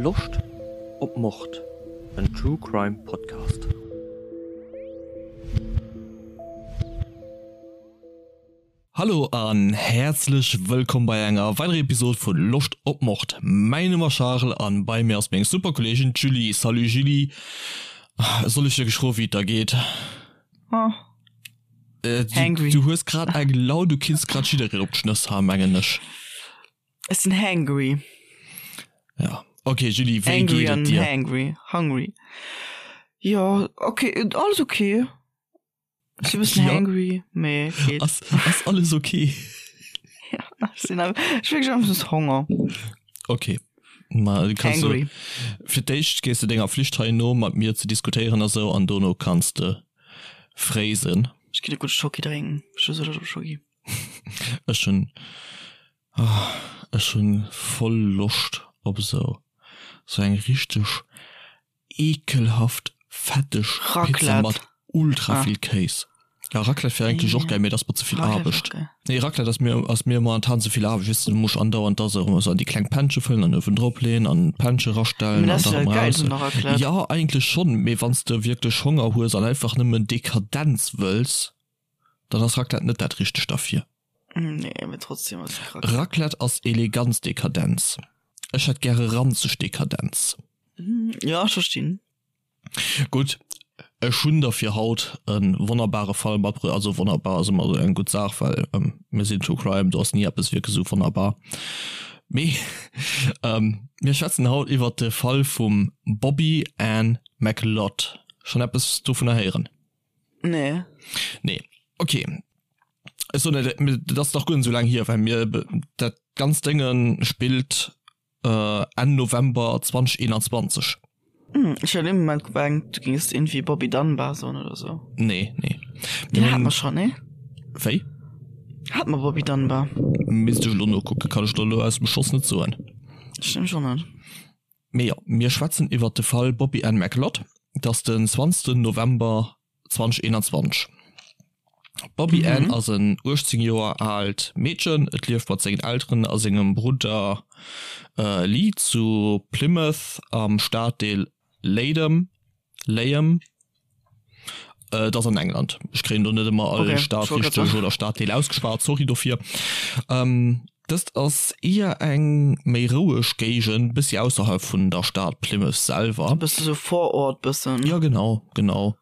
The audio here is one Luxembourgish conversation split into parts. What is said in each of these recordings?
Loscht op Mord? En True Crime Podcast. Hallo an häerzlech wëllkomm bei enger weiderer Episode vu Loscht op Mord. Mäin Numm ass Charel an bei mir ass meng super Kolleegin d'Julie. Salut Julie, soll ech dir geschro wéi et der geet? Oh. Äh, du, Hangry. du hues grad eng Laun, du kinns grad jiddereen op d'Schnëss haen, mengen ech. Ech sinn hangry. Ja. Okay, Julie, wéi Angry geet et an dir? hangry. Hungry. Jo, okay, alles okay. Ech sinn e bëssen Ja. hangry, mee geet. Ass, ass alles okay? Ja, ech sinn awer, ech hu wierklech einfach just Honger. Okay. Ma du kanns du, Hangry. fir d'éischt gees de denger Flicht hei no, mat mir ze diskutéieren a sou, an dono kanns de fréisen. Ech ginn e gudde Schoki drénken. Ech hu sou Loscht op Schoki. Ech hunn, ech hunn voll Loscht op esou, sou eng richteg ekelhaft fetteg Pizza Raclette. mat ultra Ah. vill Kéis. Ja, Raclette wär eigentlech och Ja. geil, mee dat ass mer ze vill Raclette wär Aarbecht. och geil. Nee, Raclette ass mir, ass mir momentan ze vill Aarbecht, weess de, du muss andauernd da sou an déi kleng Pännche fëllen an uewen drop leeën an d'Pännche Mee rastellen dat an ass da jo erëm dat raus. Geilst un der Raclette. Ja, eigentlech schonn, mee wann s de wierklech Honger hues an einfach nëmmen Dekadenz wëlls, dann ass Raclette net dat richtegt derfir. Nee, mee trotzdem ass Raclette. Raclette ass Eleganz Dekadenz. Ech hätt gäre ranzeg Dekadenz. Ja, ech verstinn. Gutt, ech hunn der fir haut e wonnerbare Fall matbruecht. Also wonnerbar ass ëmmer esou eng gutt Saach, well mir sinn True Crime, do ass ni eppes wierklech esou wonnerbar. Mee mir schwätzen haut iwwert de Fall vum Bobby Ann McLeod. Schonn eppes dovunner héieren? Nee. Nee, okay. Ech soen net, dat ass nach guer net esou laang hier, well mir dat ganzt Dénge spillt Enn November 2021. Hm, ech hat ee Moment gemengt, du géings iergendwéi Bobby Dunbar soen oder sou. Nee, nee. Deen hate mer schonn, nee? Wéi? Hate mer Bobby Dunbar? Misst ech elo nokucken, kann ech der elo aus dem Schoss net soen. Ech nämlech och net. Mee jo, mir schwätzen iwwert de Fall Bobby Ann McLeod. Et ass den 20 November 2021. D'Bobby Ann ass en 18 Joer aalt Meedchen. Et lieft mat sengen Elteren a sengem Brudder Lee zu Plymouth am Staddeel Leyden, Leyham. Et ass an England. Ech kréien do net ëmmer all Stad richteg oder Staddeel ausgeschwat, sorry dofir. Dëst ass éier eng méi roueg Géigend, bëssi ausserhalb vun der Stad Plymouth selwer. Bësse sou Vorort bëssen. Jo genau, genau.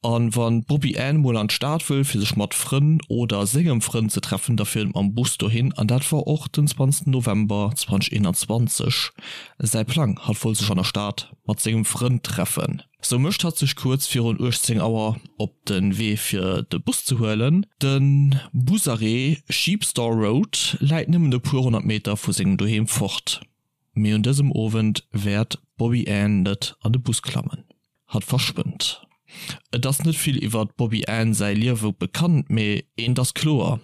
An wann d'Bobby Ann mol an d'Stad wëll fir sech mat Frënn oder sengem Frënd ze treffen, da fiert et mam Bus dohin. An dat war och den 20 November 2021 säi Plang. Hatt wollt sech an der Stad mat sengem Frënd treffen. Sou mécht hatt sech kuerz virun 18 Auer op de Wee fir de Bus ze huelen. De Busarrêt Sheepstor Road läit nëmmen e puer 100 Meter vu sengem Doheem fort. Mee un dësem Owend wäert d'Bobby Ann net an de Bus klammen. Hatt verschwënnt. Et ass net vill iwwer d'Bobby Ann säi Liewe bekannt, mee eent ass kloer,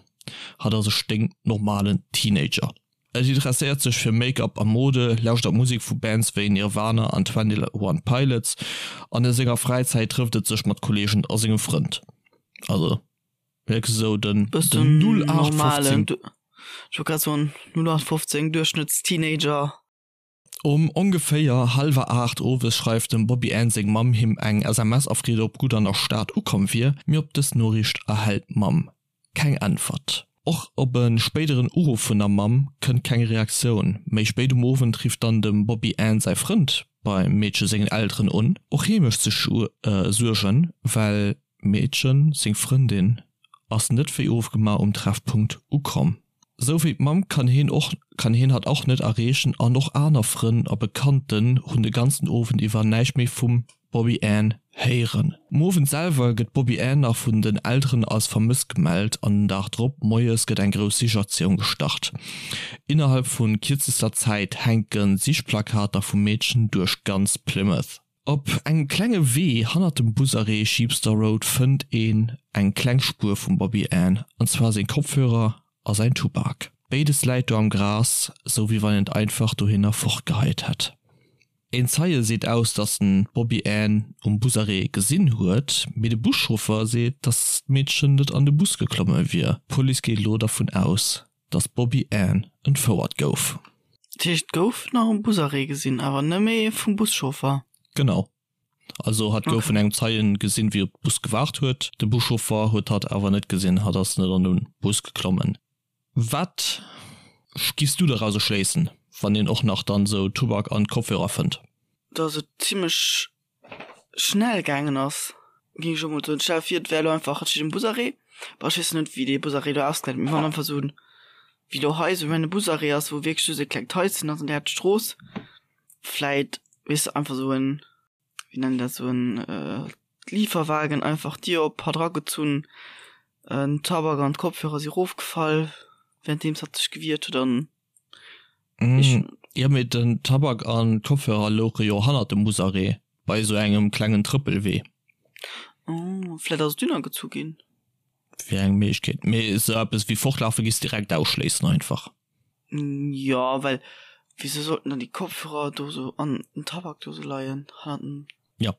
Hatt ass e sténknormalen Teenager. Et interesséiert sech fir Make-up a Mode, lauschtert Musek vu Bands wéi Nirvana an 21 Pilots an a senger Fräizäit trëfft et sech mat Kolleegen a sengem Frënd. Also wierklech esou den 0815. Ech wollt grad soen, 0815 Duerchschnëttsteenager. Um ongeféier hallwer 8 owes schreift dem Bobby Ann seng Mamm him eng SMS a freet ob gutt an der Stad ukomm wier, mee op dës Noriicht erhält d'Mamm keng Äntwert. Och op e spéideren Uruff vun der Mamm kënnt keng Reaktioun. Méi spéit um Owend rifft dann dem Bobby Ann säi Frënd beim Meedche sengen Elteren un. Och hie mécht sech Suergen, well d'Meedchen, seng Frëndin, ass net wéi ofgemaach um Treffpunkt ukomm. Sou wéi d'Mamm kann heen och kann heen hatt och net erreechen an och aner Frënn a Bekannten hunn de ganzen Owend iwwer näischt méi vum Bobby Ann héieren. Um Owend selwer gëtt d'Bobby Ann nach vun den Elteren als vermësst gemellt an den Dag drop moies gëtt eng grouss Sichaktioun gestart. Innerhalb vu kierzester Zäit hänke Sichplakater vum Meedchen duerch ganz Plymouth. Op engem klenge Wee hannert dem Busarrêt Sheepstor Road fënnt een eng kleng Spuer vum Bobby Ann, an zwar seng Kopfhörer a säin Tubak. Béides läit do am Gras, sou wéi wann een et einfach dohinner fortgeheit hätt. Een Zeie seet aus, dass en d'Bobby Ann um Busarrêt gesinn huet, mee de Buschauffer seet, dass d'Meedchen net an de Bus geklomme wier. D'Police geet elo dervun aus, dass d'Bobby Ann entfouert gouf. Dat heescht, et gouf nach e Busarrêt gesinn, awer nëmme vum Buschauffer? Genau. Also hatt gouf vun engem Zeien gesinn, wéi op de Bus gewaart huet. De Buschauffer huet hatt awer net gesinn, hatt ass net an de Bus geklommen. Wat giffs du dorauser schléissen, wann een och nach dann sou Tubak an Kopfhörer fënnt? Dass et zimlech schnell gaangen ass, géing ech elo mol soen. Stell der vir, et wär elo einfach, et steet en Busarrêt, bon ech weess net wéi dee Busarrêt elo ausgesäit, mee wann einfach sou en, wéi elo hei sou en Busarrêt ass, wou wierklech just e klengt Haischen ass an där Strooss, vläit, weess de, einfach sou en, wéi nennen dat, sou en Lieferwagen einfach d'Dier op, hatt eragezunn, den Tabak an d'Kopfhörer si rofgefall, wärenddeems hatt sech gewiert huet an ech. Jo, mee den Tabak an d'Kopfhörer louche jo hannert dem Busarrêt, bei esou engem klengen Trëppelwee. Oh, vläit ass et dunn agezu ginn. Wier eng Méiglechkeet, mee esou eppes wéi fortlafe giss direkt ausschléissen einfach. Jo, well wisou sollten dann déi Kopfhörer do sou an den Tabak do sou leien hannert dem. Jo,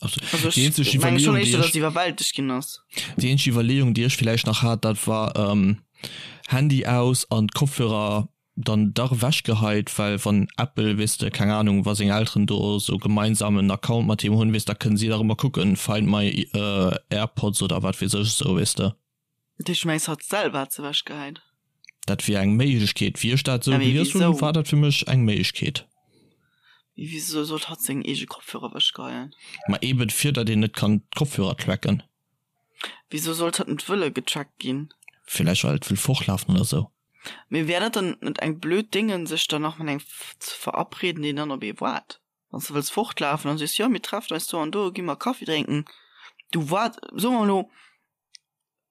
also déi eenzeg Iwwerleeung, déi ech, iwwerwältegt ginn ass. Déi eenzeg Iwwerleeung, déi ech villäicht nach hat, dat war Handy aus an d'Kopfhörer dann dach ewechgeheit, well wann Apple, weess de, keng Ahnung, wa seng Elteren do sou gemeinsam en Account mat him hunn, weess, da kënnen si dach ëmmer kucken, Find my AirPods oder wat weess ech esou, weess de. Dat heescht, du mengs, hatt selwer hat se ewechgehäit? Dat wier eng Méiglechkeet. Wéi ech dat esou gelies hunn, war dat fir mech eng Méiglechkeet. Mee wisou sollt hatt seng eege Kopfhörer ewechgeheien? Ma eben fir datt een net kann d'Kopfhörer tracken. Wisou sollt hatt net wëlle getrackt ginn? Villäicht well et wëll fortlafen oder esou. Mee wär dat dann net eng blöd Déngen, sech dann nach mat engem ze verabreden, deen dann op ee waart? Wann s de wëlls fortlafen an sees, jo mir treffen eis do an do, gi mer Kaffi drénken, du waart, soe mer elo,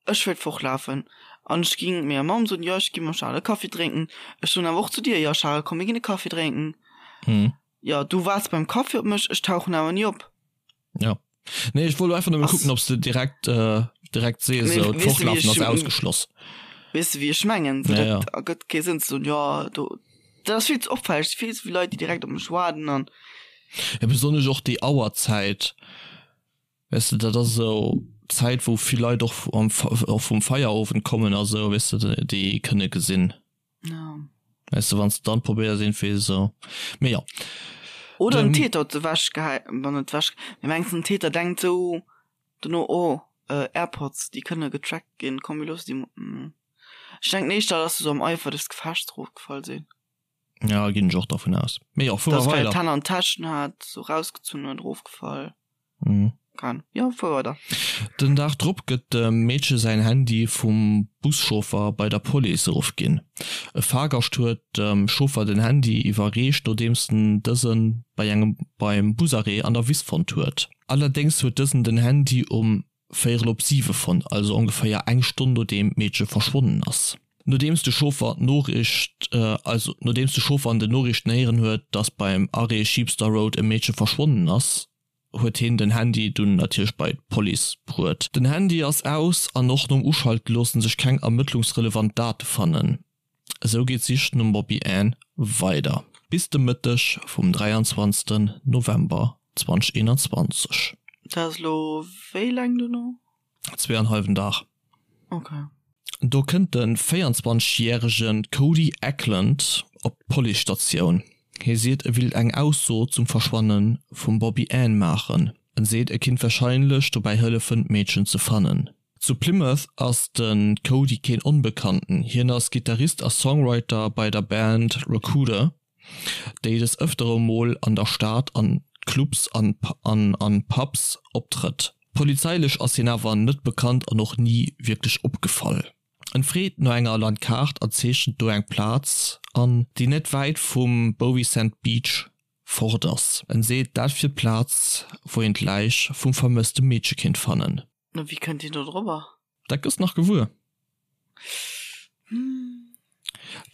Ech wéilt fortlafen an ech ging menger Mamm soen, jo ech gi mam Charel e Kaffi drénken. Ech soen awer och zu dir, jo Charel, komm mir ginn e Kaffi drénken. Jo, du waarts beim Kaffi op mech, ech tauchen awer ni op. Jo. Nee, ech wollt einfach nëmme kucken, ob s de direkt, direkt sees, esou d'Fortlafen ass ausgeschloss. Weess de wéi ech mengen? Sou, dat ergëtt kee Sënn ze soen, jo do, dat ass vill ze opfälleg, vill ze vill Leit, déi direkt op mech waarden an. Jo, besonnesch och déi Auerzäit. Weess de, dat ass esou d'Zäit, wou vill Leit och am, och vum Feierowend kommen a sou, weess de, déi kënne gesinn. Ja. Weess de, wann s de dann probéiers iergendwéi esou, mee jo. Oder den Täter huet se ewechgehäit, bon net ewech, mee mengs den Täter denkt sou dono, oh, Airpods, déi kënne getrackt ginn, komm mir loosse déi mol. Ech denken éischter, dass se sou am Eifer des Gefechts erofgefall sinn. Ja, ginn ech och dervun aus. Mee jo, fuere mer weider. Dass vläicht d'Hänn an d'Täschen hat, sou rausgezunn huet, erofgefall. Mhm. Kann. Jo, fuer weider. Den Dag drop gëtt dem Meedche säin Handy vum Buschauffer bei der Police erofginn. E Fahrgascht huet dem Chauffer den Handy iwwerreecht, nodeems en dëse bei engem beim Busarrêt an der Wiss fonnt huet. Allerdéngs huet dësen den Handy um Véierel op siwe fonnt, also ongeféier eng Stonn nodeem d'Meedche verschwonnen ass. Nodeems de Chauffer d'Noriicht, also nodeems de Chauffer an den Noriichten héieren huet, dass beim Arrêt Sheepster Road e Meedche verschwonnen ass, huet hien den Handy dunn natierlech bei d'Police bruet. Den Handy ass aus an och nom Uschalte loosse sech keng ermëttlungsrelevant Date fannen. Esou geet d'Sich nom Bobby Ann weider bis de Mëtteg vum 23 November 2021. Dat ass elo wéi laang dono? Zweeanhallwen Dag. Ok. Do kënnt de 24 järege Cody Eklund op d'Policestatioun. Hie seet e willt eng Ausso zum Verschwanne vum Bobby Ann maachen. En seet e kinnt warscheinlech dobäi hëllefen d'Meedchen ze fannen. Zu Plymouth ass de Cody keen Onbekannten, hien ass Gittarist a Songwriter bei der Band Rakuda. Déi des Ëftere mol an der Stad an Clubs an an Pubs optrëtt. Polizeilech ass hien awer net bekannt an och ni wierklech opgefall. En freet no enger Landkaart a zeechent do eng Plaz an, déi net wäit vum Bovisand Beach fort ass. En seet dat wier d'Plaz wou een d'Läich vum vermësste Meedche kéint fannen. Wéi kënnt hien do drobber? Dat gëss nach gewuer.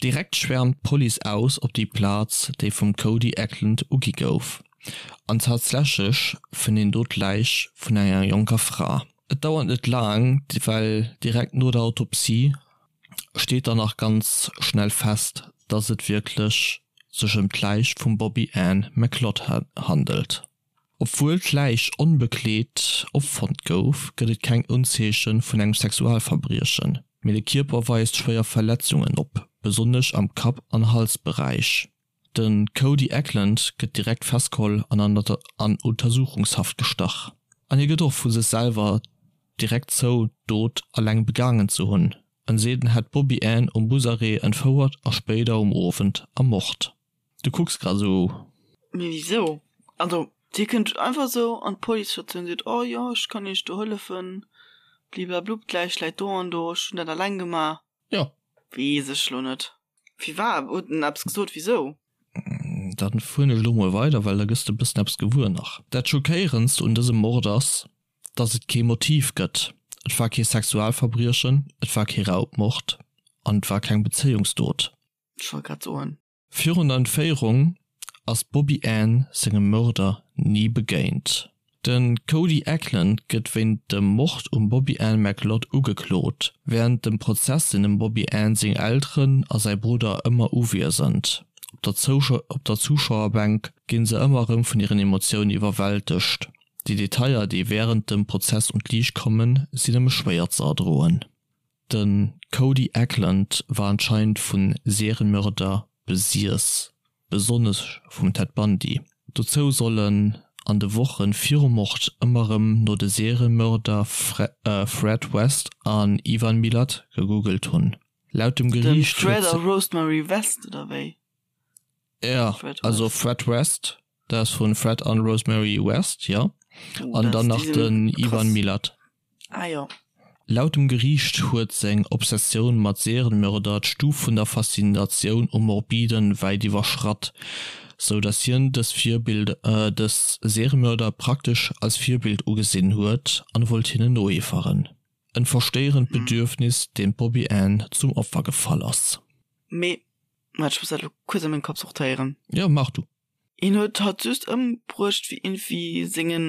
Direkt schwäermt d'Police aus op déi Plaz, déi vum Cody Eklund ugi gouf. An tatsächlech fënnt een do d'Läich vun enger jonker Fra. Et dauert net laang, well direkt no der Autopsie steet dann nach ganz schnell fest, dass et wierklech sech ëm d'Läich vum Bobby Ann McLeod handelt. Obwuel d'Läich onbekleet opfonnt gouf, gëtt et keng Unzeeche vun engem Sexualverbriechen, mee de Kierper weist schwéier Verletzungen op, besonnesch am Kapp an Halsberäich. De Cody Eklund gëtt direkt festgeholl an an Untersuchungshaft gestach. An hie gëtt och vu sech selwer direkt zou, d'Dot eleng begaangen ze hunn. En seet en hätt d'Bobby Ann um Busarrêt entfouert a spéider um Owend ermort. Du kucks grad esou. Mee wisou? Also dir kënnt einfach esou an d'Policestatioun, seet, oh jo, ech kann iech do hëllefen, bliblablub, d'Läich läit do an do, ech hunn dat eleng gemaach. Jo. Weess ech lo net. Firwat? Huet en eppes gesot wisou? Dann fueren ech elo mol weider, well da gëss de e bëssen eppes gewuer nach. Dat Schockéierendst un dësem Mord ass, dass et kee Motiv gëtt. Et war kee Sexualverbriechen, et war kee Raubmord an et war keng Bezéiungsdot. Ech wollt grad soen. Virun der Entféierung ass d'Bobby Ann sengem Mörder ni begéint. De Cody Eklund gëtt wéint dem Mord um Bobby Ann McLeod ugeklot. Wärend dem Prozess sinn dem Bobby Ann seng Elteren a säi Brudder ëmmer uwiesend. Op der Zuschauerbänk gi se ëmmer erëm vun hiren Emotiounen iwwerwältegt. Déi Detailler, déi wärend dem Prozess un d'Liicht kommen, sinn nëmme schwéier ze erdroen. De Cody Eklund war anscheinend vu Serienmörder besiess, besonnesch vum Ted Bundy. Dozou soll en an de Woche virum Mord ëmmer erëm no de Serienmörder Fred West an Ivan Milat gegoogelt hunn. Laut dem Den Geriicht Fred huet a Rosemary West, oder wéi? Ja, also Fred West, dat ass vun Fred an Rosemary West, jo. An dann nach den Ivan Milat. Ah jo. Laut dem Geriicht huet seng Obsessioun mat Serienmörder d'Stuf vun der Faszinatioun um Morbiden wäit iwwerschratt, sou datt hien dës Virbild dës Seriemörder praktesch als Virbild ugesinn huet an wollt hinnen noeeferen. En verstéierend Bedürfnis, deem d'Bobby Ann zum Opfer gefall ass. Mee Waart, ech muss dat elo kuerz a mengem Kapp sortéieren. Jo, maach du. Hien huet hatt just ëmbruecht fir iergendwéi sengen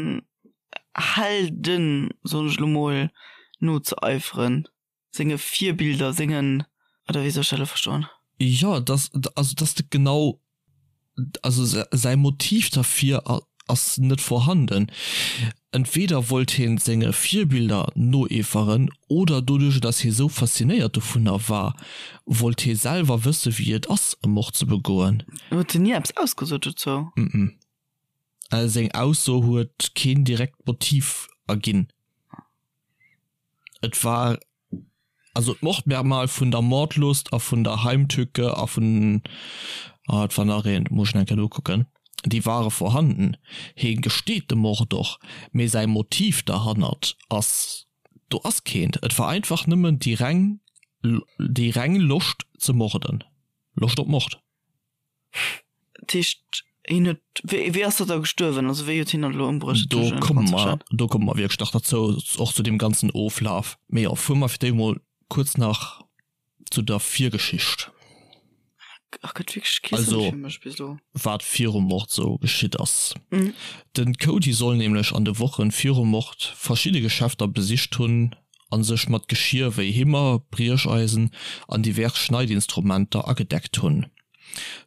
Helden, soen ech elo mol, nozeeiferen, senge Virbilder, sengen, oder wéi soll ech dat elo verstoen? Jo, dass, also dass de genau also säi Motiv derfir ass net vorhanden. Entweder wollt hien senge Virbilder noeeferen oder doduerch dass hie sou faszinéiert dovunner war, wollt hie selwer wësse wéi et ass e Mord ze begoen. Huet hien ni eppes ausgesot dozou? Mm. Seng Ausso huet keen direkt Motiv erginn. Et war Also d'Mordmerkmal vun der Mordlust a vun der Heimtücke a vun, ah et war nach eent, muss ech nach eng Kéier nokucken, déi ware vorhanden. Hie gesteet de Mord och, mee säi Motiv derhannert ass, do ass keent. Et war einfach nëmmen déi reng, déi reng Loscht ze morden, Loscht op Mord. Dat heescht, hien huet, wéi, wéi ass dat da gestuerwen? Also wéi huet hien dat elo ëmbruecht? Do komme mer, do komme mer wierklech nach derzou, och zu deem ganzen Oflaf. Mee jo, fuere mer fir d'éischt mol kuerz nach zu der Virgeschicht. Ach, gëtt wierklech kee Sënn Also, fir mech bis elo. wat virum Mord sou geschitt ass. De Cody soll nämlech an de Wochen virum Mord verschidde Geschäfter besicht hunn a sech mat Geschier wéi Himmer, Briecheisen an divers Schneidinstrumenter agedeckt hunn.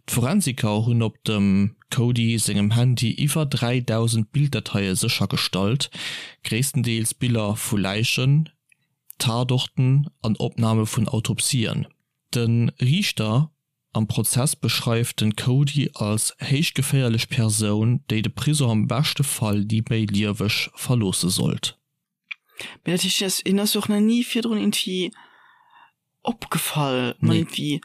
D'Forensiker hunn op dem Cody sengem Handy iwwer 3.000 Bilddateie séchergestallt, gréisstendeels Biller vu Läichen, Tatorten an Opname vun Autopsien. De Riichter am Prozess beschreift den Cody als héich geféierlech Persoun, déi de Prisong am beschte Fall ni méi lieweg verloosse sollt. Mee dat heescht, hien ass, hien ass jo och nach ni virdrun irgendwie opgefall. Nee, Irgendwie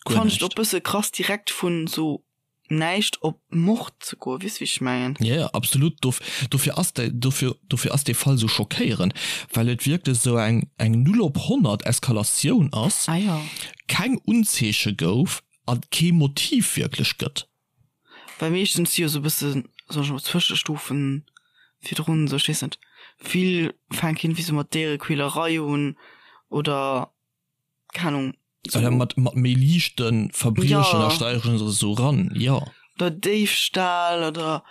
guer fand ech et näischt. och bësse krass, direkt vun sou näischt op Mord ze goen. Weess wéi ech mengen? Ja, ja, absolut. Dof, dofir ass dei, dofir, dofir ass dee Fall sou schockéierend, well et wierklech sou eng, eng Null op 100 Eskalatioun ass, Ah jo. keng Unzeeche gouf a kee Motiv wierklech gëtt. Well meeschtens si jo sou e bëssen, soen ech mol, Zwëschestufen virdrun, sou ech weess net, vill fänken iergendwéi sou mat Déierequälerei un oder keng Ahnung, sou. Oder mat, mat méi liichte Verbriechen, da steigeren se sou ran, jo. Oder Déifstahl oder.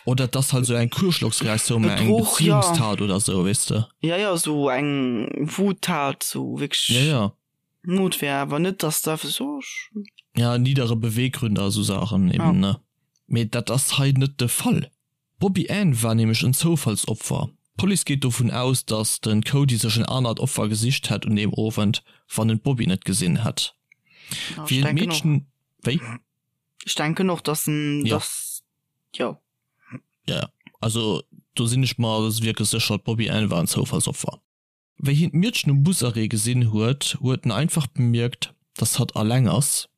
Oder et ass halt sou eng Kuerschlocksreaktioun, mä eng Bedruch, jo. Beziehungstat oder sou, weess de. Ja, jo, sou eng Wuttat, sou wierklech. Ja, ja. Notwehr, awer net dass da so Ja niddere Beweggründe a sou Saachen eben ja. ne. Mee dat ass hei net de Fall. D'Bobby Ann war nämlech en Zoufallsopfer. D'Police geet dovun aus, datt de Cody sech en anert Opfer gesicht hätt un deem Owend, wann en d'Bobby net gesinn hätt. Ja, Wéi ech en denken och. d'Meedchen. Wéi? Ech denken och, dass en, dass, jo. Jo, jo. Also do sinn ech mer wierklech sécher, d'Bobby Ann war en Zoufallsopfer. Wéi hien d'Miedchen um Busarrêt gesinn huet, huet en einfach bemierkt, dass hatt alleng ass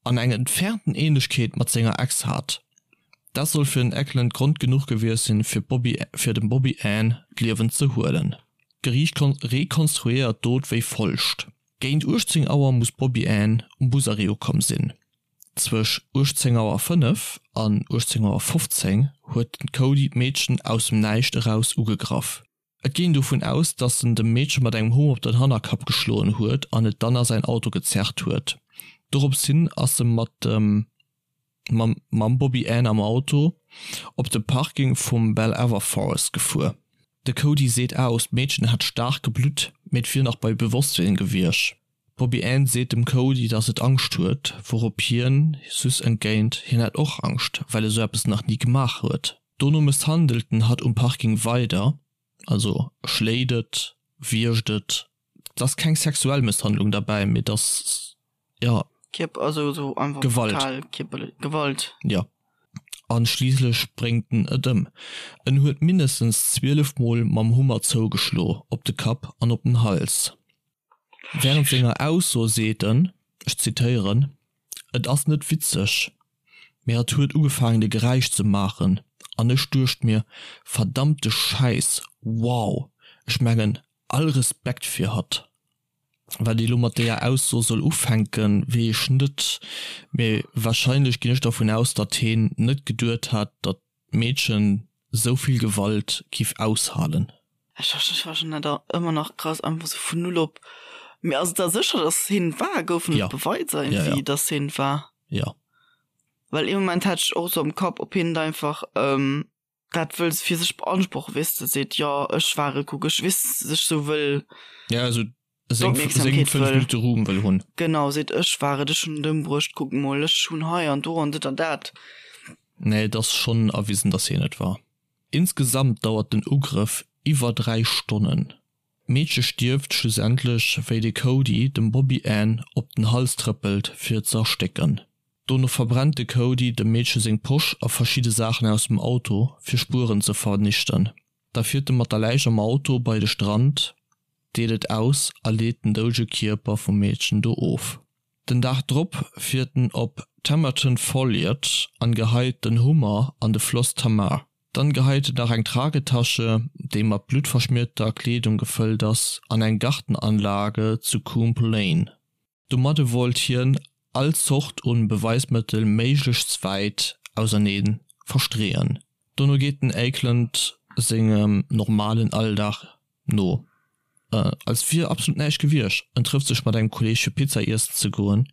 an eng entfernten Ähnlechkeet mat senger Ex hat. Dat soll fir den Eckland Grond genuch gewiescht sinn, fir d'Bobby fir dem Bobby Ann d'Liewen ze huelen. D'Geriicht rekonstruéiert d'Dot wéi folgt, Géint 18 Auer muss d'Bobby Ann um Busarrêt ukomm sinn. Zwësch 18 Auer 5 an 18 Auer 15 huet den Cody d'Meedchen aus dem Näischt eraus ugegraff. Et geet een dovun aus, datt en dem Meedche mat engem Hummer op den Hannerkapp geschloen huet an et dann a säin Auto gezerrt huet. Dorops hin ass e mat dem mam Bobby Ann am Auto op de Parking vum Bell-Aver Forest gefuer. De Cody seet aus, d'Meedchen hätt staark geblutt, mee et wier nach bei Bewosstsinn gewiescht. D'Bobby Ann seet dem Cody, datt et Angscht huet, wourop hien süss entgéint, hien hätt och Angscht, well e sou eppes nach ni gemaach huet. Dono mësshandelt en hatt um Parking weider, also schléit et, wiergt et. Et ass keng sexuell Mësshandlung derbäi, mee et ass, jo, Gewalt. Gewalt. Jo. An schliisslech bréngt en et ëm. En huet mindestens 12 Mol mam Hummer zougeschlo, op de Kapp an op den Hals. Wärend senger Ausso seet en, ech zitéieren, Et ass net witzeg, mee hatt huet ugefaangen de Geräisch ze maachen an ech duecht mir, verdammte Schäiss, wow, ech mengen, all Respekt fir hatt. Wat ee lo mat deeër Ausso soll ufänken, weess ech net, mee warscheinlech ginn ech dervun aus, datt heen net geduet hat, datt d'Meedchen sou vill Gewalt giff aushalen. Ech fannen dat och ëmmer nach krass, einfach sou vun null op. Mee ass et da sécher, dass hien et war? Goufen et Beweiser iergendwéi, dass hien et war? Jo. Well ee Moment hat ech och sou am Kapp, ob hien et einfach dat wëll fir sech beanspruchen, weess de, seet, jo ech war et, kuck ech, weess de, sech sou wëll. Ja, esou seng 5 Minutte Ruhm wëll hunn. Genau, seet ech war et, ech hunn et ëmbruecht, kuck mol, ech hunn hei an do an dit an dat. Nee, et ass schonn erwisen, datt hien et war. Insgesamt dauert den Ugrëff iwwer 3 Stonnen. D'Meedche stierft schlussendlech, wéi de Cody dem Bobby Ann op den Hals trëppelt, fir et ze erstécken. Dono verbrennt de Cody dem Meedche seng Posch a verschidde Saachen aus dem Auto, fir Spueren ze vernichten. Da fiert e mat der Läich am Auto bei de Strand, deet et aus a leet den doudege Kierper vum Meedchen do of. Den Dag drop fiert en op Tamerton Folliot an geheit den Hummer an de Floss Tamar. Dann geheit en nach eng Tragetasche, déi mat bluttverschmierter Kleedung gefëllt ass, an eng Gartenanlage zu Coombe Lane. Domadde wollt hien all Zort un Beweismëttel méiglechst wäit ausernee verstreeën. Dono geet den Eikland sengem normalen Alldag no, als wier absolut näischt gewiescht. En trëfft sech mat engem Kolleeg fir Pizza iessen ze goen,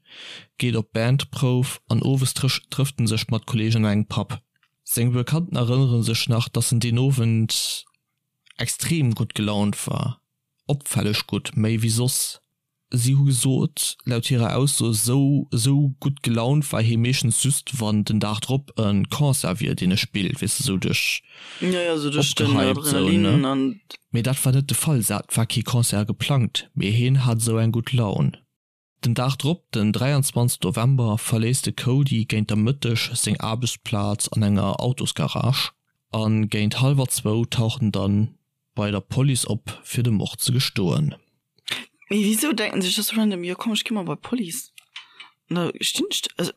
geet op d'Bandprouf an owes trëfft en sech mat Kolleegen an engem Pub. Seng Bekannten erënnere sech nach, dass en deen Owend extrem gutt gelaunt war, opfälleg gutt, méi wéi soss. Si hu gesot, laut hirer Ausso, esou esou gutt gelaunt war hie meeschtens just, wann den Dag drop e Concert wier, deen e spillt, weess de, esou duerch opgehypt esou, ne? Mee dat war net de Fall, et war kee Concert geplangt, mee hien hat esou eng gutt Laun. Den Dag drop, den 23 November, verléisst de Cody géint der Mëtteg seng Aarbechtsplaz an enger Autosgarage a géint hallwer zwou taucht en dann bei der Police op fir de Mord ze gestoen. Mee wisou denken sech das random, jo komm ech gi mol bei d'Police an da stinn ech also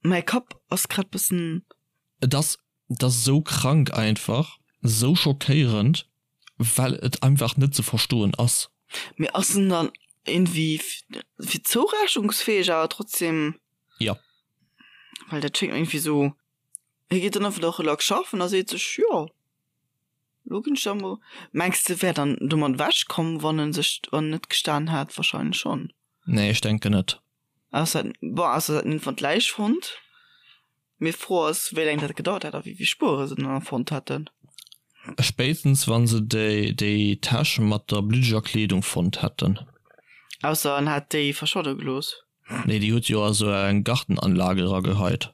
mäi Kapp ass grad bëssen. Et ass, et ass esou krank einfach, esou schockéierend, well et einfach net ze verstoen ass. Mee ass en dann iergendwéi fir zourechnungsfäeg awer trotzdem? Jo. Well dat schéngt mir iergendwéi esou. Hie geet dann einfach och relax schaffen a seet sech, jo, lo ginn ech da mol. Mengs de wär dann domat ewech komm, wann en sech, wann en net gestan hätt? Wahrscheinlech schonn. Nee, ech denken net. Ausser, bon, ausser se hätten iergendwann d'Läich fonnt. Mee d'Fro ass, wéi laang dat gedauert hätt a wéi vill Spuere se dann fonnt hätten. Spéitstens wann se déi déi Täsch mat der bluddeger Kleedung fonnt hätten. Ausser en hätt déi verschwadde gelooss. Nee, déi huet jo a sou eng Gartenanlage erageheit.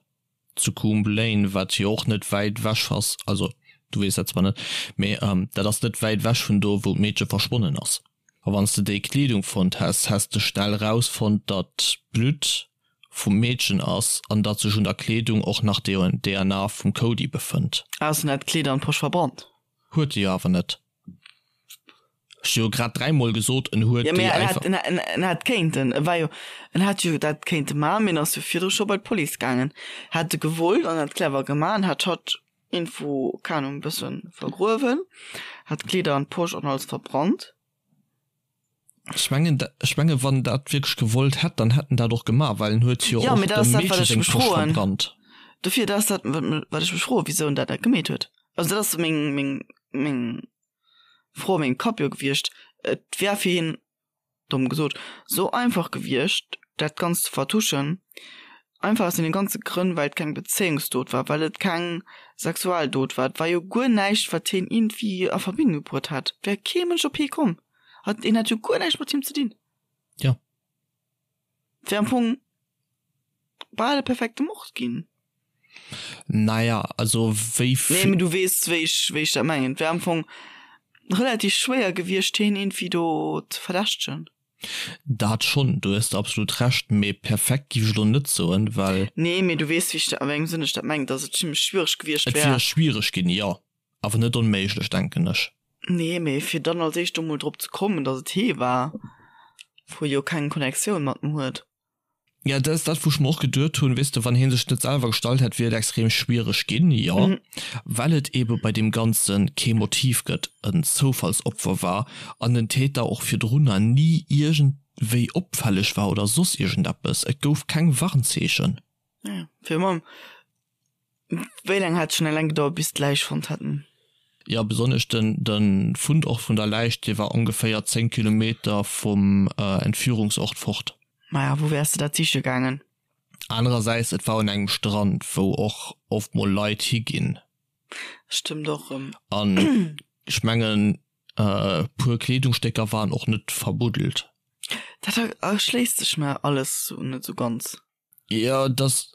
Zu Coombe Lane, wat jo och net wäit ewech ass, also du weess dat zwar net, mee dat ass net wäit ewech vun do, wou d'Meedche verschwonnen ass. A wann s de déi Kleedung fonnt häss, häss de schnell erausfonnt, datt d'Blutt vum Meedchen ass an datt sech un der Kleedung och nach DNA vum Cody befënnt. Ausser en hätt d'Kleed an d'Posch verbrannt. Huet e jo awer net. Ech hu jo grad dräimol gesot, en huet déi einfach. Jo, mee en hätt kéinten, e war jo, en hätt jo dat kéinte maachen, mee en ass jo virdru scho bei d'Police gaangen. Hätt e gewollt an hätt clever gemaach an hätt hatt iergendwou, keng Ahnung, e bësse vergruewen, hätt d'Kleeder an d'Posch an alles verbrannt. Ech mengen, ech mengen, wann en dat wierklech gewollt hätt, dann hätt en dat och gemaach, well en huet jo och dem Meedche seng Posch verbrannt. Dofir, dat ass dat, wat ech mech froen, wisou en dat net gemeet huet. Also dat ass meng, meng, meng Fro a mengem Kapp jo gewiescht. Et wär fir hien, domm gesot, sou einfach gewiescht, dat Ganzt ze vertuschen, einfach aus deene ganze Grënn, well et keng Bezéiungsdot war, well et keng sexuell Dot war. Et war jo guer näischt, wat hien iergendwéi a Verbindung bruet hätt. Et wär kee Mënsch op hie komm. Hat, hien hat jo guer näischt mat him ze dinn. Jo. Et wär am Fong bal e perfekte Mord ginn. Naja, also wéi Nee, mee du weess, wéi ech, wéi ech dat mengen. Et wär am Fong relativ schwéier gewiescht, hien iergendwéi do ze verdächtegen. Dat schonn, do hues de absolut Recht, mee perfekt giff ech elo net soen, well. Nee, mee du weess, wéi ech dat, a wéi engem Sënn ech dat mengen, dass et zimmlech schwiereg gewiescht wär. Et wier schwiereg ginn, jo, awer net onméiglech, denken ech. Nee, mee fir dann als éischt do mol drop ze kommen, dass et hee war, wou e jo keng Connectioun mat em huet. Ja, dat ass dat, wou ech mer och geduet hunn, weess de, wann hie sech net selwer gestallt hätt, wier et extrem schwiereg ginn, jo, well et eebe bei deem Ganze kee Motiv gëtt, en Zoufallsopfer war an den Täter och virdrunner ni iergendwéi opfälleg war oder soss iergendeppes. Et gouf keng Warnzeechen. Ja, fir mam Wéi laang hat et schonn eleng gedauert, bis d'Läich fonnt haten? Jo, besonnesch den de Fundort vun der Läich, dee war ongeféier 10 Kilometer vum Entführungsort fort. Maja, wou wäers de dat siche gaangen? Anerersäits, et war un engem Strand, wou och oft mol Leit higinn. Stëmmt och rëm. An ech mengen, e puer Kleedungsstécker waren och net verbuddelt. Dat erschléisst sech mer alles net sou ganz. Jo, dass,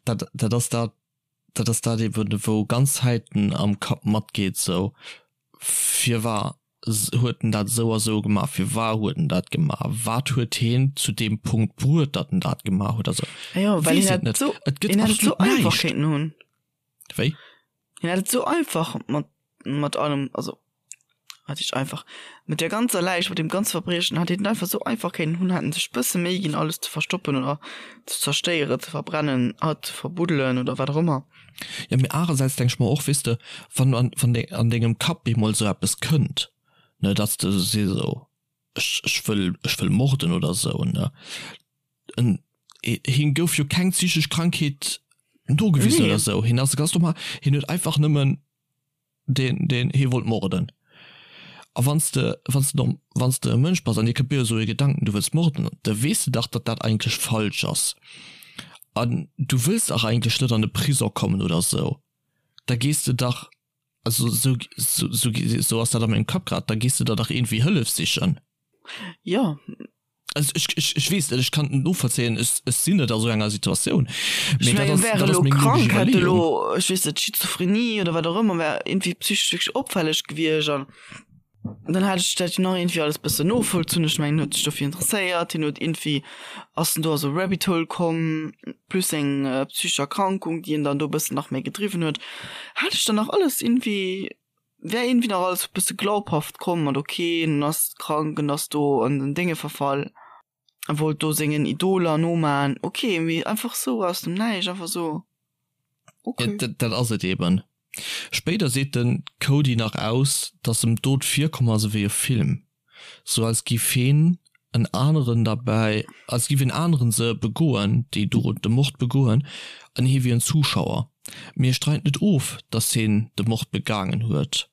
dat, dat ass dat, dat ass dat eben, wou ganz Zäiten am Kapp matgeet, sou, firwar huet en dat esou a sou gemaach, firwar huet en dat gemaach, wat huet heen zu deem Punkt bruet, datt en dat gemaach huet, also, Jo, well weess hien et hätt net, esou, et gëtt hien hätt et esou absolut einfach näischt. kéinten hunn. Wéi? Hien hätt et esou einfach mat, mat allem, also wat heescht einfach, mat der ganzer Läich, mat deem ganze Verbriechen hätt hien et einfach esou einfach kéinten hunn, hätt en sech bësse Méi ginn alles ze verstoppen oder ze zerstéieren, ze verbrennen, hatt ze verbuddelen oder wat och ëmmer. Jo, mee anerersäits denk ech mer och, weess de, wann an, wann de an dengem Kapp eemol esou eppes kënnt, ne, datt s de sees esou, ech, ech wëll, ech wëll morden oder esou, ne, en, him gouf jo keng psychesch Krankheet nogewisen Nee. oder esou, hien ass ganz normal, hien huet einfach nëmmen deen, deen hie wollt morden. A wann s de, wann s de norm, wann s de e Mënsch bass an dir kënnt bal esou e Gedanken, du wëlls morden, da weess de dach, datt dat eigentlech falsch ass an du wëlls dach eigentlech net an de Prisong kommen oder esou, da gees de dach, also esou, esou, esou ass dat a mengem Kapp grad, da gees de der dach iergendwéi Hëllef sichen. Jo. Also ech, ech, ech weess net, ech kann et net novollzéien, ech, ech sinn net a sou enger Situatioun. Ech Mee dat mengen, ass, wär dat ass elo meng logesch krank, hätt Iwwerleeung. elo, ech weess net, Schizophrenie oder wat och ëmmer, wär iergendwéi psychesch wierklech opfälleg gewiescht an dann hätt ech dat jo nach iergendwéi alles bëssen novollzunn. Ech mengen, en huet sech dofir interesséiert, hien huet iergendwéi, ass en do a sou Rabbit Hole komm, plus seng psychesch Erkrankung, déi en dann do bëssen nach méi gedriwwen huet, hätt ech dann nach alles iergendwéi wär iergendwéi nach alles e bësse glaubhaft komm mat ok en ass krank en ass do an den Dénge verfall a wollt do sengen Idoler noman ok mee einfach sou aus dem Näischt einfach sou ok. Ja, dat ass et eben. Spéider seet den Cody nach aus, dass em d'Dot virkomm ass ewéi e Film. Sou als giff heen en aneren derbäi, als giff en aneren se begoen, déi Dot, de Mord begoen, an hie wier en Zuschauer. Mee e streit net of, dass heen de Mord begaangen huet.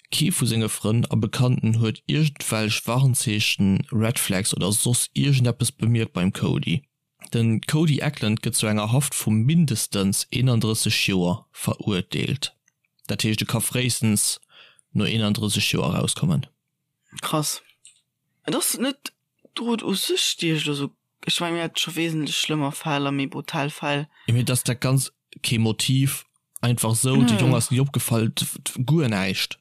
Kee vu senge Frënn a Bekannten huet iergendwelch Warnzeechen, Red Flags oder soss iergendeppes bemierkt beim Cody. Den Cody Eklund gëtt zu enger Haft vu mindestens 31 Joer verurteelt. Dat heescht e ka fréistens no 31 Joer erauskommen. Krass. Et ass net d'Dot u sech déi ech elo sou, ech mengen mir hate scho wesentlech schlëmmer Fäll a méi brutal Fäll. Jo mee dass dat ganz kee Motiv, einfach sou, de Jong ass ni opgefall, guer näischt.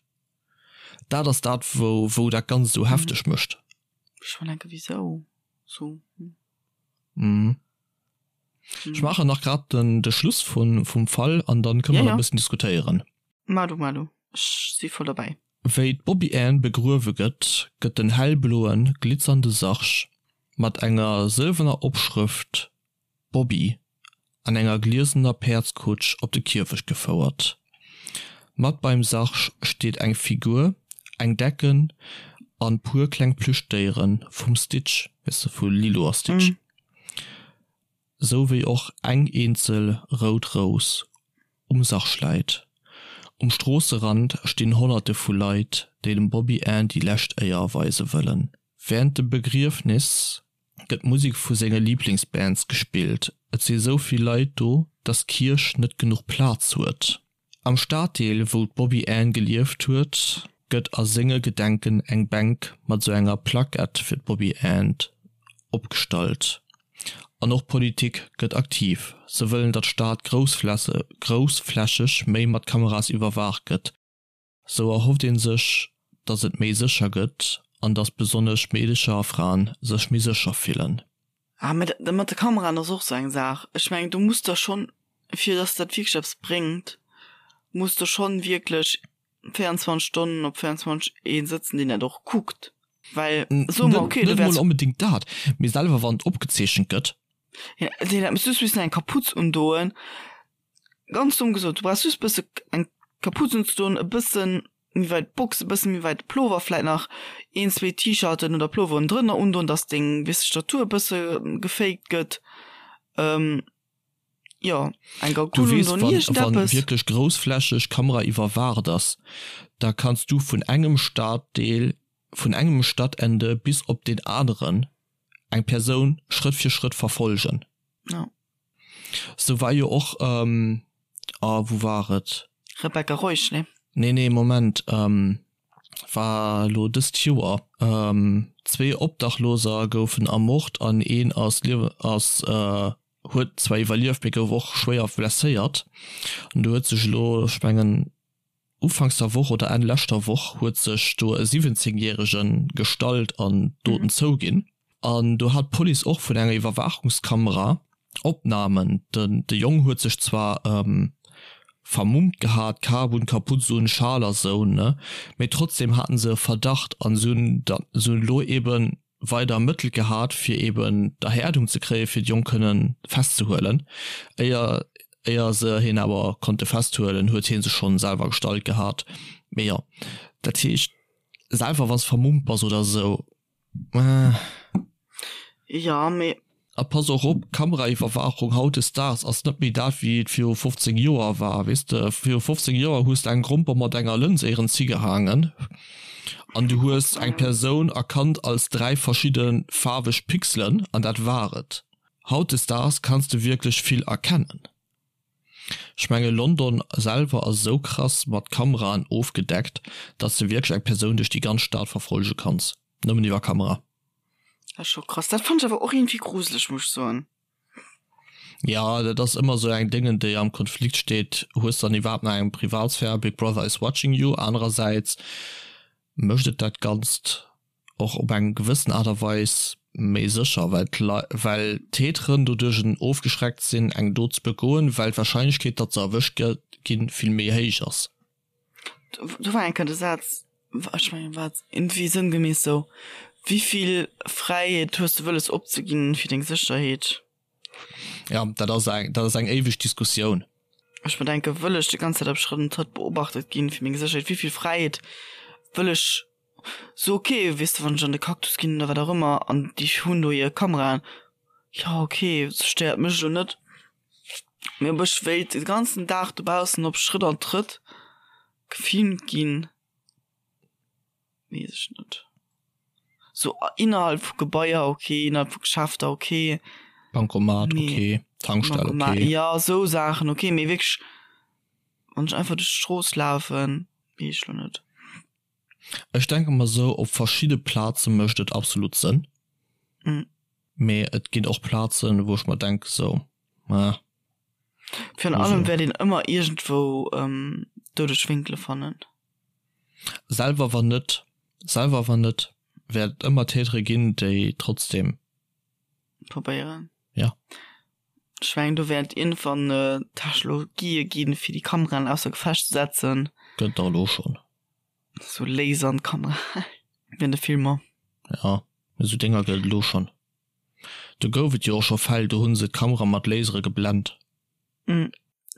Dat ass dat wou wou dat Ganzt esou hefteg mécht. Ech mer denken wisou sou. Mhm. Ech maachen nach grad den de Schluss vun vum Fall an dann kënne mer nach e bëssen diskutéieren. Mar du, mar du, ech si voll derbäi. Wéi d'Bobby Ann begruewe gëtt, gëtt den hellbloen, glitzernde Sarg mat enger sëlwerner Opschrëft Bobby an enger gliesener Päerdskutsch op de Kierfecht gefouert. Mat beim Sarg steet eng Figur, eng Decken an puer kleng Plüschdéieren vum Stitch, weess de, vu Lilo a Stitch, sou wéi och eng eenzel rout Rous um Sarg läit. Um Stroosserand stinn Honnerte vu Leit, déi dem Bobby Ann déi lescht Éier erweise wëllen. Wärend dem Begriefnis gëtt Musek vu senge Liblingsbands gespillt. Et si sou vill Leit do, dass d'Kierch net genuch Plaz huet. Am Staddeel, wou d'Bobby Ann gelieft huet, gëtt a senge Gedenken eng Bänk mat sou enger Plackett fir d'Bobby Ann opgestallt. An och d'Politik gëtt aktiv, se wëllen, datt d'Stad groussflächeg méi mat Kameras iwwerwaacht gëtt. Sou erhofft een sech, dass et méi sécher gëtt an dass besonnesch Meedecher a Fraen sech méi sécher fillen. Ah, mä dat mat de Kameraen ass och sou eng Saach. Ech mengen, do muss der schonn, fir dass dat wierklech eppes bréngt, muss der schonn wierklech 24 Stonnen op 24 ee sëtzen, deen dat och kuckt. Well soe mer, okay, du wäers. Net mol onbedéngt dat, mee selwer wann et opgezeechent gëtt. Ja, deen dat muss just missen eng Kapuz undoen. Ganz domm gesot, du brauchs just bësse eng Kapuz unzedoen, e bëssen méi weit d'Box, e bësse méi weit de Plover, vläit nach een, zwee T-Shirten oder Ploveren drënner undoen, dass deng, weess de, Statur e bësse gefaked gëtt. Jo, eng Du Gagoule weess, undoen, wann, wann iergendeppes. wierklech groussflächeg Kamera iwwerwaacht ass, da kanns du vun engem Staddeel, vun engem Stadtende bis op deen aneren eng Persoun Schrëtt fir Schrëtt verfolgen. Ja. Sou war jo och, ähm, ah, wou war et? Rebecca Reusch, nee? Nee, nee, Moment, ähm, war elo dëst Joer. Ähm, zwee Obdachloser goufen ermort an een ass liew, ass, äh, huet zwar iwwerlieft, mee gouf och schwéier blesséiert. An do huet sech elo, ech mengen, Ufanks der Woch oder Enn leschter Woch huet sech do e 17 järege gestallt an d'Doten zouginn. An do hat d'Police och vun enger Iwwerwaachungskamera Opnamen. Den de Jong huet sech zwar vermummt gehat, Kap un, Kaputz un, Schal a sou, ne, mee trotzdem haten se e Verdacht an se hunn da se hunn elo eben weider ermëttelt gehat, fir eben d'Erhäerdung ze kréien, fir de Jong kënnen festzehuelen. Éier éier se hien awer konnte festhuelen, huet hie sech schonn selwer gestallt gehat. Mee jo, dat heescht, selwer wann s vermummt bass oder esou, eh. Jo, mee. A pass och op, Kameraiwwerwaachung hautdesdaags ass net méi dat, wéi et viru 15 Joer war. Weess de, viru 15 Joer hues de eng Gromper mat enger Lëns éierens higehaangen an du hues eng Persoun erkannt als 3 verschidde faarweg Pixelen an dat war et. Hautdesdaags kanns de wierklech vill erkennen. Ech menge London selwer ass esou krass mat Kameraen ofgedeckt, datt s de wierklech eng Persoun duerch déi ganz Stad verfollege kanns, nëmmen iwwer Kamera. Dat ass scho krass. Dat fannt ech awer och iergendwéi gruseleg, muss ech soen. Ja, dat ass ëmmer esou eng Déngen, déi am Konflikt steet. Hues dann iwwerhaapt nach eng Privatsphär? Big Brother is watching you. Anerersäits mécht et dat Ganzt och op eng gewëssen Aart a Weis méi sécher, well d'Lei, well d'Täteren doduerch ofgeschreckt sinn, eng Dot ze begoen, well d'Warscheinlechkeet, datt se erwëscht ginn, vill méi héich ass. Do war eng Kéier de Saz, ech mengen war et iergendwéi sënngemäss sou, Wéivill Fräiheet hues de wëlles opzeginn fir deng Sécherheet? Ja, dat ass eng, dat ass eng éiweg Diskussioun. Ech mer denken, wëll ech déi ganz Zäit op Schrëtt an Trëtt beobachtet ginn fir meng Sécherheet? Wéivill Fräiheet wëll ech sou, ok, weess de, wann ech an de Cactus ginn oder wat och ëmmer an déi hunn do hir Kameraen, jo ok, stéiert mech elo net. Mee ob ech wéilt de ganzen Dag dobaussen op Schrëtt an Trëtt gefilmt ginn, weess ech net. Sou innerhalb vu Gebaier ok, innerhalb vu Geschäfter ok. Bancomat ok, Tankstell ok. Jo, sou Saachen ok, mee wierklech wann ech einfach duerch d'Strooss lafen, weess ech lo net. Ech denke mer sou, op verschidde Plaze mécht et absolut Sënn. Mee et ginn och Plazen, wou ech mer denken sou, ah. Virun allem wäert een ëmmer iergendwou doudeg Wénkele fannen. Selwer wann net, selwer wann net, wäert et ëmmer Tätere ginn, déi trotzdem. Probéieren. Ja. Ech. mengen do wäert iergendwann Technologië ginn, fir déi Kameraen ausser Gefecht ze setzen. Gëtt der elo schonn. Sou Laser an d'Kamera wéi an de Filmer. Jo, esou Dénger gëtt et elo schonn. Do gouf et jo och scho Fäll, do hu se d'Kamera mat Lasere geblent.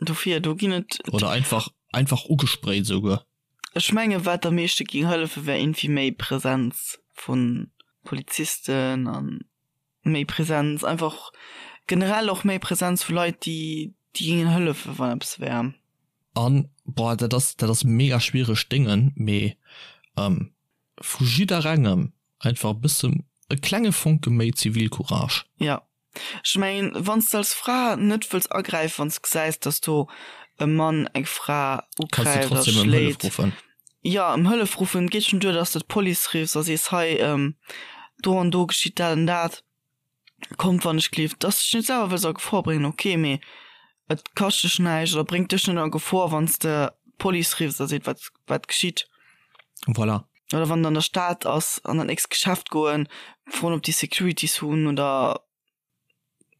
Dofir, do ginn et. Oder einfach, einfach ugesprayt esouguer. Ech menge wat am meeschte géing hëllefe wär iergendwéi méi Präsenz vu Polizisten a méi Präsenz einfach generell och méi Präsenz vu Leit, déi déi géingen hëllefe wann eppes wär. An, boah, dat ass, dat ass mega schwiereg Déngen, mee vu jidderengem einfach e bësse, e klenge Fonke méi Zivilcourage. Jo, ech mengen, wann s de als Fra net wëlls agräifen, wann s de gesäis, dass do e Mann eng Fra Kanns de ugräift a trotzdem ëm Hëllef schléit, ruffen. jo, ëm Hëllef ruffen. Et geet schonn duer, dass de d'Police riffs a sees, hei, do an do geschitt dat an dat, kommt wann ech gleef. Dass de dech net selwer wëlls a Gefor bréngen, ok, mee et kascht dech näischt oder bréngt dech net a Gefor, wann s de d'Police riffs a seet, wat, wat geschitt. Voilà. Oder wann et an der Stad ass, an dat nächst Geschäft goen, froen ob déi Securities hunn oder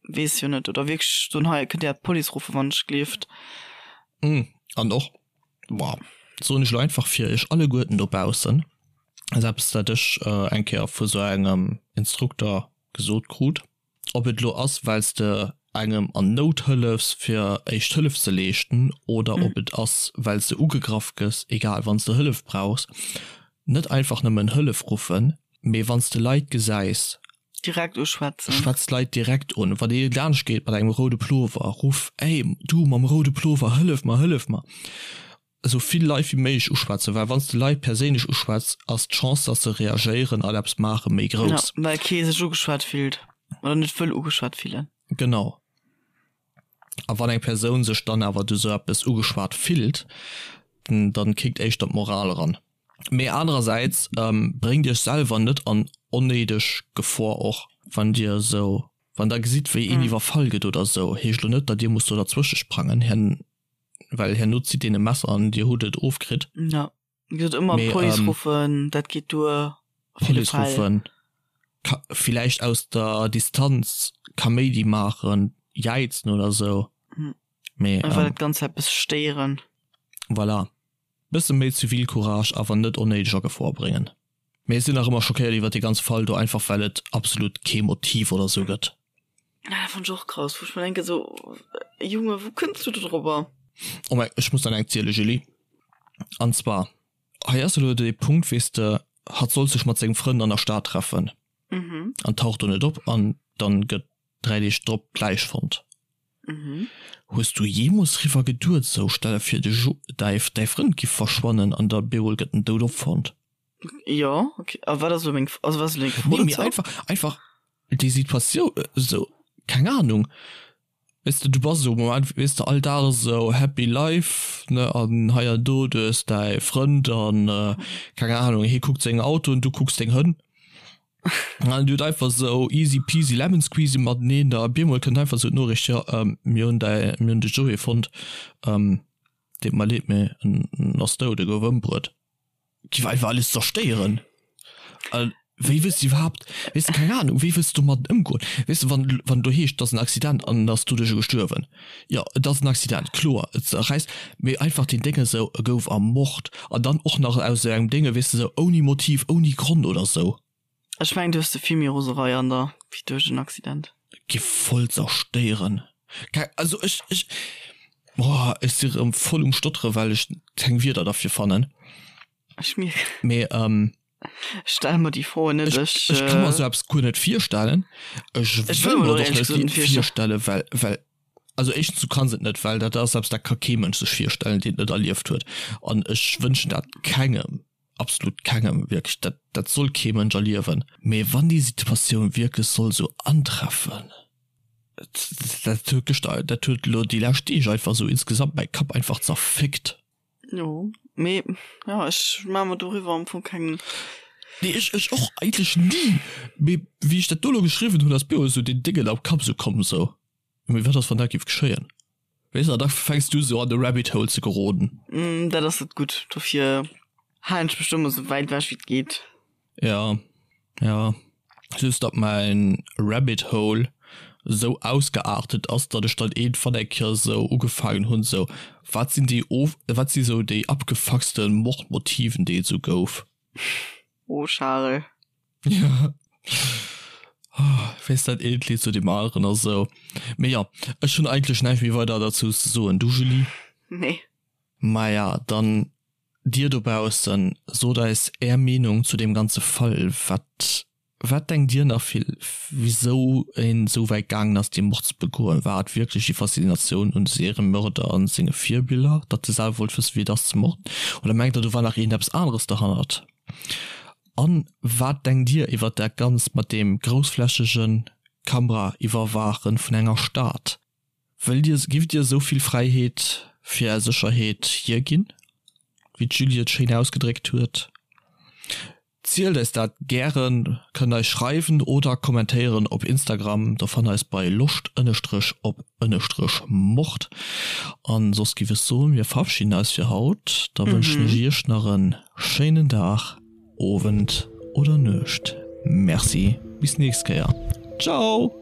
weess jo net. Oder wierklech soen, hei kënnt Dir d'Police ruffen, wann ech gleeft. An och, boah, soen ech elo einfach fir iech alleguerten dobaussen, ass eppes dat ech eng Kéier vu sou engem Instrukter gesot krut, Ob et elo ass, well s de engem an Nout hëllefs fir éischt Hëllef ze leeschten oder ob et ass, well s de ugegraff gëss, egal, wann s de Hëllef brauchs, net einfach nëmmen Hëllef ruffen, mee wann s de Leit gesäis, Direkt uschwätzen. Schwätz d'Leit direkt un. Wann ee laanscht geet mat engem roude Plover, ruff, Ey, du mam roude Plover, hëllef mer, hëllef mer! Esou vill Leit wéi méiglech uschwätzen, well wann s de Leit perséinlech uschwätz, ass d'Chance, dass se reagéieren an eppes maachen, méi grouss. Ja, well kee sech ugeschwat fillt oder net wëll ugeschwat fillen. Genau. A wann eng Persoun sech dann awer duerch esou eppes ugeschwat fillt, dann kickt éischter d'Moral eran. Mee anerersäits bréngt iech selwer net an onnéideg Gefor, och wann dir esou, wann der gesitt wéi een iwwerfall gëtt oder esou, heescht elo net, datt dir musst do derzwësche sprangen. Well herno zitt deen e Messer an dir hutt et ofkritt. Ja, wéi gesot, ëmmer Police ähm, ruffen, dat geet duer. Police ruffen, ka villäicht aus der Distanz Kaméidi maachen, jäizen oder sou. Hm. Mee, Einfach ähm, dat Ganzt eppes stéieren. Voilà. Bësse méi Zivilcourage, awer net onnéideg a Gefor bréngen. Mee ech sinn nach ëmmer schockéiert iwwert dee ganze Fall do, einfach well et absolut kee Motiv oder sou gëtt. Ah, dat fannt ech och krass, wou ech mer denken sou, Junge, wou kënns du do drobber? Oh mäi, ech muss der eng ziele Julie. An zwar, hei ass elo dee Punkt, weess de, hatt sollt sech mat sengem Frënd an der Stad treffen an taucht do net op an dann gëtt 3 Deeg drop d'Läich fonnt. Hues du jeemols riwwer geduet, sou, stell der vir de Jo, däi Frënd giff verschwannen an da bemol gëtt en dout opfonnt? Jo, ok. A wat ass elo meng, also wat ass elo deng Fro Nee, mee dozou? einfach, einfach déi Situatioun, esou, keng Ahnung, weess de, du bass esou am Moment, weess de, all Dag esou happy life, ne, an hei an do, du hues däi Frënd an, keng Ahnung, hie kuckt seng Autoen, du kucks deng Hënn. An dir hutt einfach esou easy peasy lemon squeezy mateneen, da op eemol kënnt einfach esou d'Noriicht, jo, mir hunn däi, mir hunn de Joé fonnt, deet mer leed, mee en ass dout, e gouf ëmbruet. Giff einfach alles zerstéieren. A wéi wëlls de iwwerhaapt, weess de, keng Ahnung, wéi wëlls de domadden ëmgoen? Weess de, wann, wann do heescht, et ass en Accident an en ass doduercher gestuerwen, jo, et ass en Accident, kloer, et zerräisst, mee einfach deen Dénge esou, e gouf ermort an dann och nach aus esou engem Dénge, weess de, esou ouni Motiv, ouni Grond oder esou. Ech mengen, du hues ze vill méi Roserei an der wéi duerch en Accident. Giff voll zerstéieren. Keng, also ech, ech, boah, ech si rëm voll um Stotteren, well ech keng Wierder derfir fannen. Ech mierken. Mee, ähm. Ech stelle mer déi Froen net. Ech, ech ka mer esou eppes guer net virstellen. Ech wëll mer et och net virstellen, well, well, also éischtens, du kanns et net, well dat ass eppes, dat ka kee Mënsch sech virstellen, deen et net erlieft huet. An ech wënschen dat kengem, absolut kengem, wierklech, dat, dat soll kee Mënsch erliewen. Mee wann déi Situatioun wierklech soll esou antreffen, dat huet gëschter, dat huet elo déi lescht Deeg einfach esou insgesamt mäi Kapp einfach zerfickt. Jo, mee ja, ech maache mer doriwwer am Fong keng. Nee, ech, ech och eigentlech ni. Mee wéi ech dat do elo geschriwwen hunn, ass mir och esou deen Déngen am Kapp esou komm, esou, Mee wat ass, wann dat géif geschéien? Weess de, an da fänks du esou an de Rabbit Hole ze geroden. Dat ass net gutt. Dofir halen ech mech do ëmmer esou wäit ewech wéi et geet. Ja, ja. Just datt mäin Rabbit Hole. Esou ausgeartet ass, datt ech dann iergendwann eng Kéier esou ugefaangen hunn, esou, wat sinn déi of, wat si sou déi abgefuckste Mordmotiven, déi et esou gouf. Oh Charel. Ja. Weess dat eent Lidd zu deem aneren a sou. Mee jo, ech hunn eigentlech näischt méi weider derzou ze soen. Du Julie? Nee. Maja, dann dir dobaussen, sot eis är Meenung zu deem ganze Fall. Wat Wat denkt Dir nach vill, wisou een esou wäit gaangen ass dee Mord ze begoen? War et wierklech déi Faszinatioun un Seriemörder an senge Virbiller, datt e selwer wollt wëssen wéi et ass ze morden? Oder mengt der do war nach iergendeppes aneres derhannert? An wat denkt Dir iwwert dat Ganzt mat deem groussflächegen Kameraiwwerwaachen vun enger Stad? Wëllt Dir, giff Dir esou vill Fräiheet fir Är Sécherheet hierginn, wéi d'Julie et schéin ausgedréckt huet? Zielt eis dat gären, kënnt eis schreiwen oder kommentéieren op Instagram, do fannt eis bei loscht ënnestrech op ënnestrech mord. An soss giff ech soen, mir verabschieden eis fir haut, da wënschen ech iech nach en schéinen Dag, Owend oder Nuecht. Merci, bis nächst Kéier, ciao!